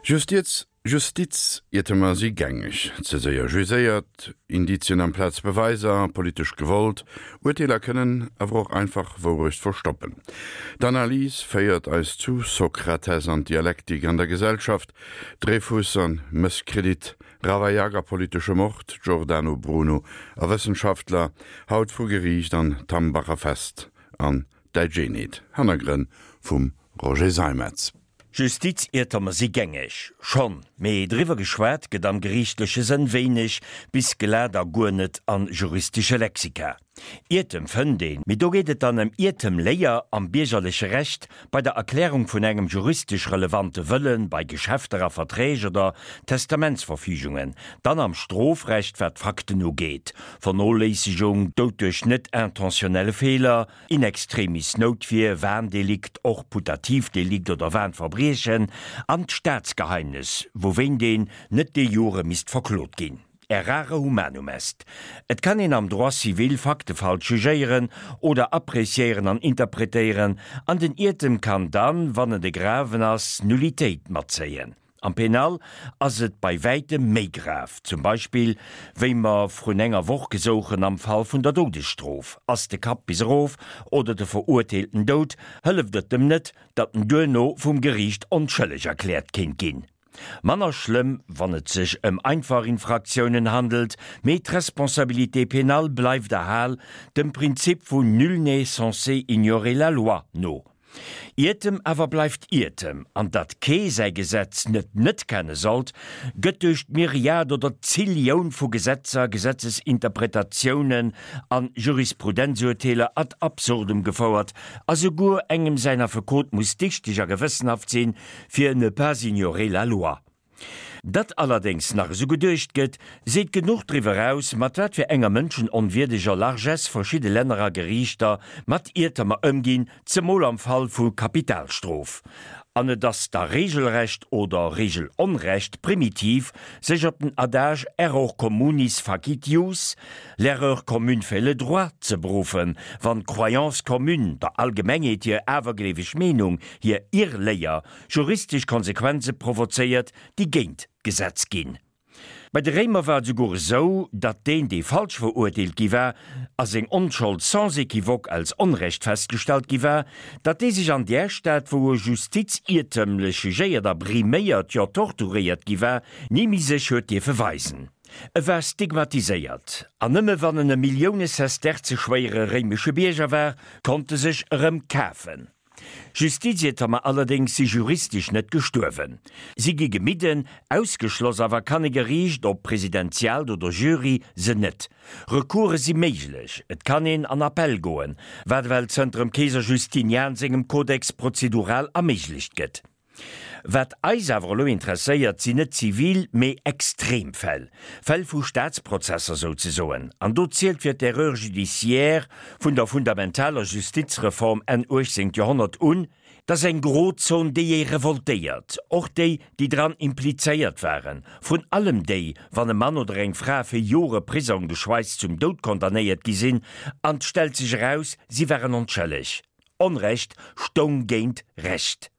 Justiz, Justiziertemer si gängeg, ze séier jugéiert, Indizien amplaz Beweiser, politesch gewollt, Urteeler kënnen awer och einfach Wourecht verstoppen. D'Analys féiert eis zu Sokrates an d'Dialektik an der Gesellschaft, Dreyfus an Mësskredit, Ravaillac a politesche Mord, Giordano Bruno a Wëssenschaftler, haut vru Geriicht an d'Hambacher Fest an Däitsch Eenheet, Hannergrënn vum Roger Seimetz. Justiziertomer si gängeg, schonn, mee driwwer geschwat gëtt am geriichtleche Sënn wéineg bis glat a guer net an juristesche Lexika. Iertem fënnt een, mee do geet et dann ëm Iertemléier am biergerleche Recht, bei der Erklärung vun engem juristesch relevante Wëllen, bei Geschäfter a Verträg oder Testamentsverfügungen, dann am Strofrecht, wat d'Fakten ugeet, Vernoléissegung, Doud duerch net intentionnelle Feeler, In extremis Noutwier, Warndelikt, och Putativdelikt oder Warnverbriechen, an d'Staatsgeheimnes, wouwéint een net de jure misst verklot ginn. Errare humanum est. Et kann een am Droit civil Fakte falsch jugéieren oder appréciéieren an interpretéieren, an den Iertem kann dann, wann en de graven ass, Nullitéit matzéien. Am Penal ass et bei wäitem méi grav. Zum Beispill, wéi mer vrun enger Woch gesouchen am Fall vun der Doudesstrof. Ass de Kapp bis erof oder de Verurteelten dout, hëlleft et dem net, datt en duerno vum Geriicht onschëlleg erkläert kéint ginn. Manner schlëmm, wann et sech ëm einfach Infraktiounen handelt, mee d'Responsabilité pénale bleift erhal, dem Prinzip vun nul n'est censé ignorer la loi no. Iertem awer bleift Iertem, an datt kee säi Gesetz net net kenne sollt, gëtt duerch d'Myriad oder d'Zillioun vu Gesetzer, Gesetzesinterpretatiounen an Jurisprudenzurteeler ad absurdum gefouert, a souguer engem säin Affekot muss dichteg a gewëssenhaft sinn, fir ne pas ignorer la loi. Datt allerdéngs nach esou geduecht gëtt, seet genuch driwwer aus, mat wat fir enger mënschenonwierdeger Largesse verschidde Länner a Geriichter mat Iertemer ëmginn, zemol am Fall vu Kapitalstrof. An et ass da regelrecht oder regelonrecht primitiv, sech op den Adage error communis facit jus, l'erreur commune fait le droit, ze beruffen, wann d'Croyance commune, der Allgemengheet hir awergleeweg Meenung, hir Irrléier, juristesch Konsequenze provozéiert, déi géint d'Gesetz ginn. Bei de Réimer war et esouguer esou, datt deen, dee falsch verurteelt gi war a seng Onschold sans équivoque als Onrecht festgestallt gi war, datt dee sech an där Stad, wou e justiziertëmlech jugéiert a briméiert, jo torturéiert gi war, ni méi sech huet dierfe weisen. E war stigmatiséiert, an nëmme wann en e Millioune-Sesterze-schwéiere réimesche Bierger war, konnt e sech erëm kafen. Justiziertermer allerdéngs si juristesch net gestuerwen. Si gi gemidden, ausgeschloss awer kann e Geriicht, ob presidentiaalt oder Jury, se net. Recourse si méiglech, et kann een an Appell goen, wat ewell zënter dem Keeser Justinian sengem Codex prozedural erméiglecht gëtt. Wat eis awer elo interesséiert, sinn net zivil, mee extrem Fäll, Fäll vu Staatsprozesser souzesoen. An do zielt fir d'Erreur judiciaire vun der fundamentaler Justizreform Enn 18. Joerhonnert un, dass eng Grozon, déi ee revoltéiert, och déi, déi dran implizéiert waren, vrun allem déi, wann e Mann oder eng Fra fir Jore Prisong geschweisst zum Doud condamnéiert gi sinn, an 't stellt sech eraus, si waren onschëlleg. Onrecht stoung géint Recht.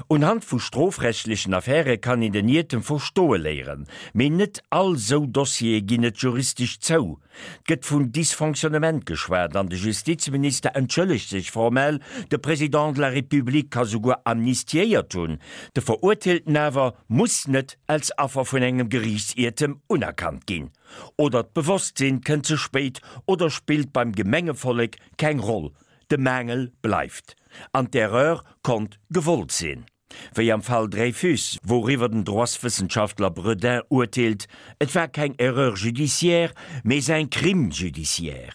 Unhand vu strofrechtlechen Affäre kann een den Iertem verstoe léieren, mee net all sou Dossiere ginn et juristesch zou. 't gëtt vun Dysfonctionnement geschwat an de Justizminister entschëllegt sech formell, de Président de la République ka souguer amnistiéiert hunn, de Verurteelten awer muss net als Affer vun engem Geriichtsiertem unerkannt ginn. Oder d'Bewosstsinn kënnt ze spéit oder spillt beim Gemengevollek keng Roll. De Maangel bleift. An d'Erreur konnt gewollt sinn. Wéi am Fall Dreyfus, wouriwwer den Droitswëssenschaftler Bredin urteelt, et war keng Erreur judiciaire, mais un crime judiciaire.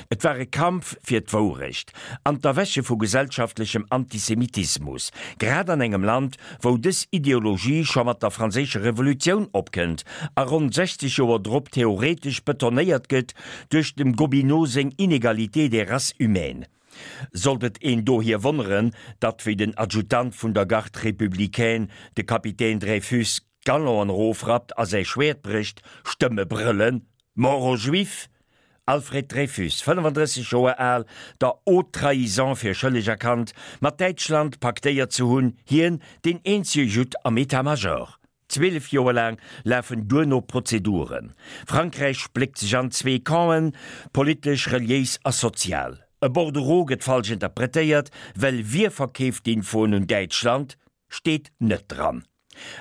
Et war e Kampf fir d'Wourecht an d'Erwäche vu gesellschaftlechem Antisemitismus, grad an engem Land, wou dës Ideologie scho mat der Franséischer Revolutioun opkënnt a ronn 60 Joer drop theoretesch betonéiert gëtt duerch dem Gobineau seng Inégalité des races humaines. Sollt et een dohier wonneren, datt wéi den Adjutant vun der Garde républicaine, de Kapitän Dreyfus, d'Galonen erofrappt a säi Schwäert brécht, Stëmme brëllen, Mort aux Juifs! Alfred Dreyfus, 35 Joer al, der Haute Trahison fir schëlleg erkannt, mat Däitschland paktéiert ze hunn, hien, deen eenzege Judd am État-Major. 12 Joer laang lafen duerno Prozeduren. Frankräich spléckt sech an zwee Campen, politesch, reliéis a sozial. E Bordereau gëtt falsch interpretéiert, well wie verkeeft d'Infoen un Däitschland, steet net dran.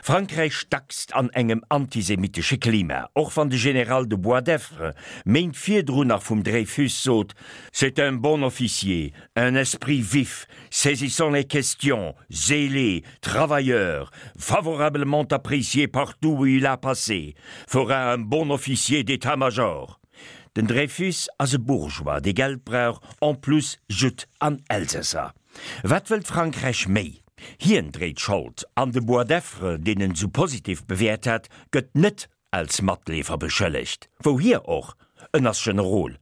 Frankräich stackst an engem antisemitesche Klima, och wann de General de Boisdeffre Méint virdrun nach vum Dreyfus sot, C'est un bon officier, un esprit vif, saisissant les questions, zélé, travailleur, favorablement apprécié partout où il a passé, fera un bon officier d'état-major. Den Dreyfus ass e Bourgeois, dee Geld brauch, en plus Judd an Elsässer. Wat wëllt Frankräich méi? Hien dréit Schold, an de Boisdeffre, deen en sou positiv bewäert hat, gëtt net als Matleefer beschëllegt. Wouhier och, en ass Generol.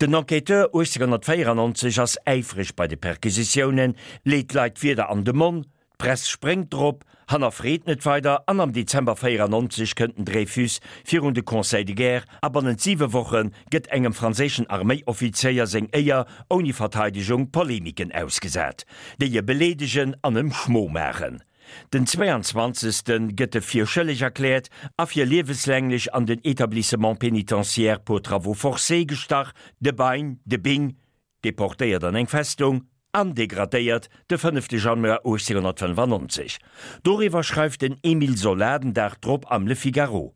Den Enquêteur 1894 ass äifreg bei de Perquisitiounen, leet d'Leit d'Wierder an de Monn, d'Press spréngt drop, hannerfreet net weider an am Dezember 94 kënnt den Dreyfus virun de Conseil de guerre a bannent siwe Woche gëtt engem franséischen Arméioffizéier seng Éier ouni Verteidegung Polemiken ausgesat, déi e beleedegen an em Schmo maachen. Den 22. Gëtt e fir schëlleg erkläert a fir lieweslänglech an den Établissement pénitentiaire pour travaux forcés gestach, de Bein, de Bing, deportéiert an eng Festung an degradéiert de 5. Januar 1895. Doriwwer schreift den Émile Zola den Dag drop am Le Figaro.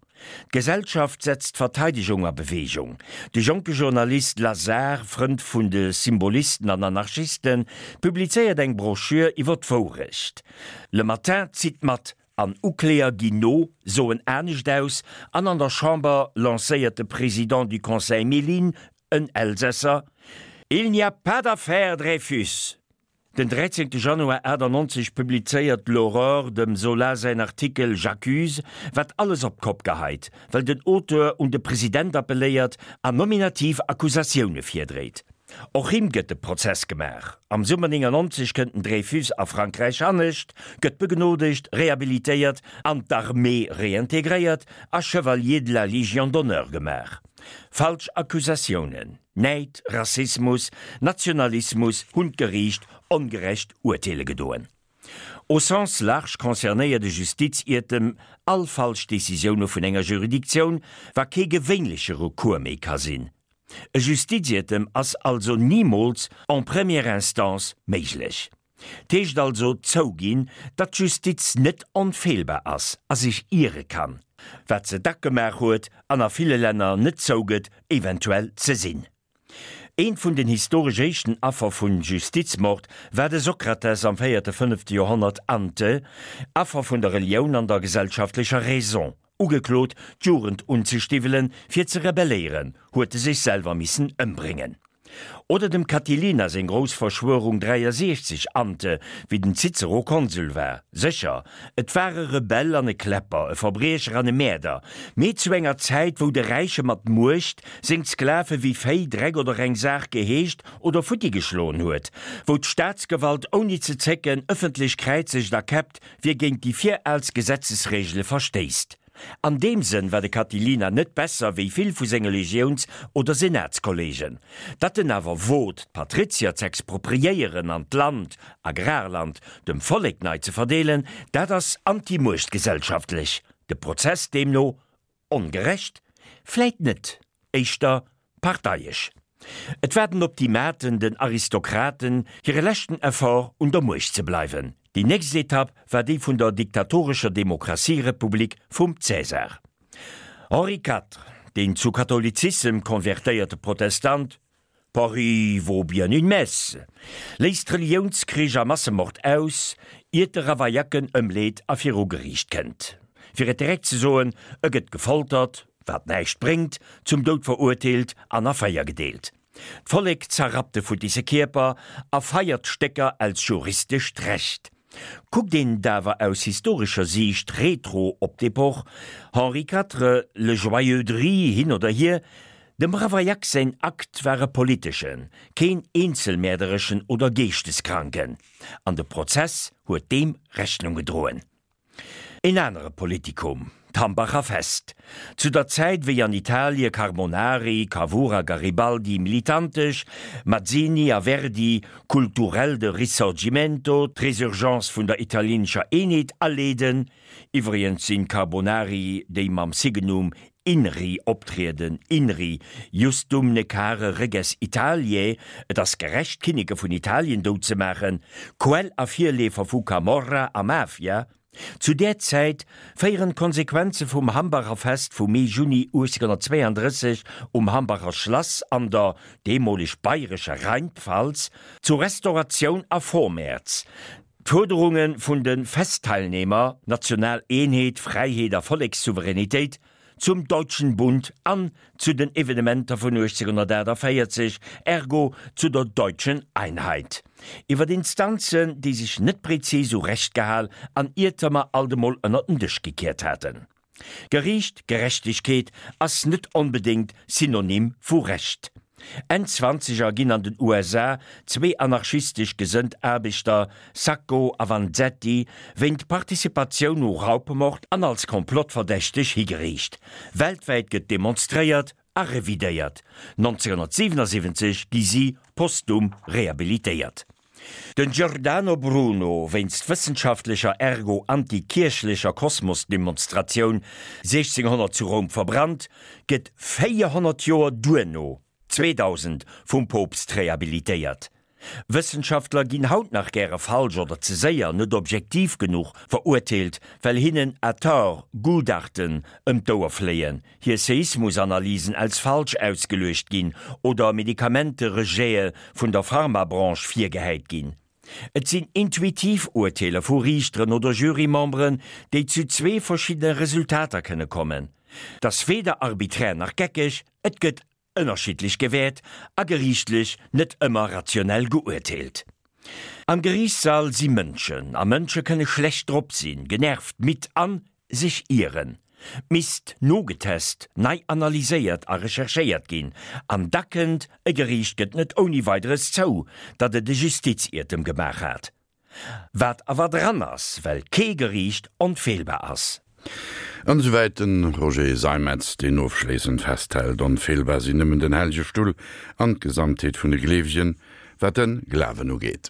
D'Gesellschaft setzt d'Verteidegung a Beweegung. De jonke Journalist Lazare, Frënd vun de Symbolisten an Anarchisten, publizéiert eng Broschür iwwer d'Wourecht. Le Matin zitt mat an Ukläer ginn no, soen anescht aus an an der Chamber lancéiert de Président du Conseil Méline, en Elsässer, Il n'y a pas d'affaire Dreyfus! Den 13 Januar 98 publizéiert L'Aurore dem Zola säin Artikel J'accuse, wat alles op d'Kopp geheit, well den Auteur un de President appelléiert an nominativ Accusatioune virdréit. Och him gëtt de Prozess gemaach. Am Summer 99 kënnt den Dreyfus a Frankräich anescht, gëtt begnodegt, rehabilitéiert, an d'Armée reintegréiert a Chevalier de la Légion d'honneur gemaach. Falsch Accusatiounen. Näid, Rassismus, Nationalismus hunn d'Geriicht ongerecht urteele gedoen. Au sens large concernéiert e Justiziertem all falsch Decisioune vun enger Juridictioun, wa kee gewéinleche Recours méi ka sinn. E Justiziertem ass also nimools en première instance méiglech. 't heescht also zouginn, datt d'Justiz net onfeelbar ass a sech iere kann, wat se dack gemaach huet an a ville Länner net zougëtt eventuell ze sinn. Eent vun den historesch éischten Affer vun Justizmord war de Sokrates am véierte, fënnefte Joerhonnert ante, Affer vun der Relioun an der gesellschaftlecher Raison, ugeklot d'Jugend unzestiwwelen fir ze rebelléieren, huet e sech selwer missen ëmbréngen. Oder dem Catilina seng grouss Verschwörung 63 ante, wéi den Cicero Konsul war. Sécher, et war e Rebell an e Kläpper, e Verbriecher an e Mäerder, mee zu enger Zäit, wou de Räiche mat Muecht seng Sklave wéi Véi, Dreck oder eng Saach geheescht oder futti geschloen huet, wou d'Staatsgewalt ouni ze zécken ëffentlech kräizegt a käppt, wie géint déi viraalst Gesetzesregele verstéisst. An deem Sënn war de Catilina net besser wéi vill vu senge Legiouns oder Senatskolleegen. Datt en awer wot, d'Patrizier z'expropriéieren an d'Land, Agrarland, dem Vollek nei ze verdeelen, dat ass antimuechtgesellschaftlech. De Prozess deemno ongerecht? Vläit net, éischter Parteiesch. Et war den Optimaten, den Aristokraten, hire leschten Effort, un der Muecht ze bleiwen. Déi nächst Etapp war déi vun der diktatorescher Demokratierepublik vum Cäsar. Henri IV, deen zu Katholizissem konvertéierte Protestant, Paris vaut bien une messe, léisst Reliounskrich a Massemord aus, iert de Ravaillac en ëmleet a viru Geriicht kënnt. Fir et direkt ze soen, e gëtt gefoltert, wat näischt bréngt, zum Doud verurteelt an a 4 gedeelt. D'Vollek zerrappt de futtisse Kierper a feiert d'Stécker als juristescht Recht. Kuckt een et awer aus historescher Siicht retro op d'Epoch, Henri IV, le joyeux Dri hin oder hier, dem Ravaillac säin Akt war e politeschen, keen eenzelmäerdereschen oder geeschteskranken, an de Prozess huet deem Rechnung gedroen. Een anere Politikum. D'Hambacher Fest. Zu der Zäit wéi an Italie Carbonari, Cavour a Garibaldi militantesch, Mazzini a Verdi kulturell de Risorgimento, d'Resurgence vun der italienescher Eenheet aleeden, iwwregens sinn d'Carbonari déi mam Signum INRI optrieden, INRI, Justum Necare Reges Italiae, et ass gerecht d'Kinneke vun Italien dout ze maachen, Quell a Virleefer vu Camorra a Mafia. Zu där Zäit féieren d'Konsequenze vum Hambacher Fest vu Mee-Juni 1832 um Hambacher Schlass an der deemoleg bayrescher Rheinpfalz zu Restauratioun a Vormärz. D'Fuerderunge vun de Festteilnehmer, national Eenheet, Fräiheet a Vollekssouveränitéit, zum Deutschen Bund an zu den Evenementer vun 1848, ergo zu der Deutschen Einheit. Iwwer Instanzen, déi sech net prezis u Recht gehal an Iertemer alt emol ënner den Dësch gekiert haten. Geriicht, Gerechtegkeet ass net onbedéngt Synonym vu Recht. Enn Zwanzeger ginn an den USA zwee anarchistesch gesënnt Aarbechter, Sacco a Vanzetti, wéint Participatioun u Raubmord an als Komplottverdächteg higeriicht. Weltwäit gëtt demonstréiert a revidéiert. 1977 gi si postum rehabilitéiert. Den Giordano Bruno wéinst wëssenschaftlecher ergo anti-kierchlecher Kosmosdemonstratioun 1600 zu Roum verbrannt, gëtt 400 Joer duerno, 2000, vum Poopst rehabilitéiert. Wëssenschaftler ginn haut nach gäre falsch oder ze séier, net objektiv genuch, verurteelt, well hinnen à tort Gutachten ëm d'Ouer fléien, hir Seismusanalysen als falsch ausgeluecht ginn oder Medikamenterejete vun der Pharmabranche virgehäit ginn. Et sinn intuitiv Urteeler vu Riichteren oder Jurymemberen, déi zu zwee verschiddene Resultater kënne kommen. 't ass weder arbiträr nach geckeg, et gëtt ënnerschiddlech gewäert a geriichtlech net ëmmer rationell geurteelt. Am Geriichtssall si Mënschen, a Mënsche kënne schlecht drop sinn, genervt, midd an sech ieren. Misst nogetest, nei analyséiert a recherchéiert ginn. An da kënnt, e Geriicht gëtt net ouni Weideres zou, datt et e Justiziertem gemaach hat. Wat awer dran ass, well kee Geriicht onfeelbar ass. An esouwäit de Roger Seimetz, deen ofschléissend festhält, Onfeelbar sinn nëmmen den Hellege Stull an d'Gesamtheet vun de Gleewegen, wat de Glawen ugeet.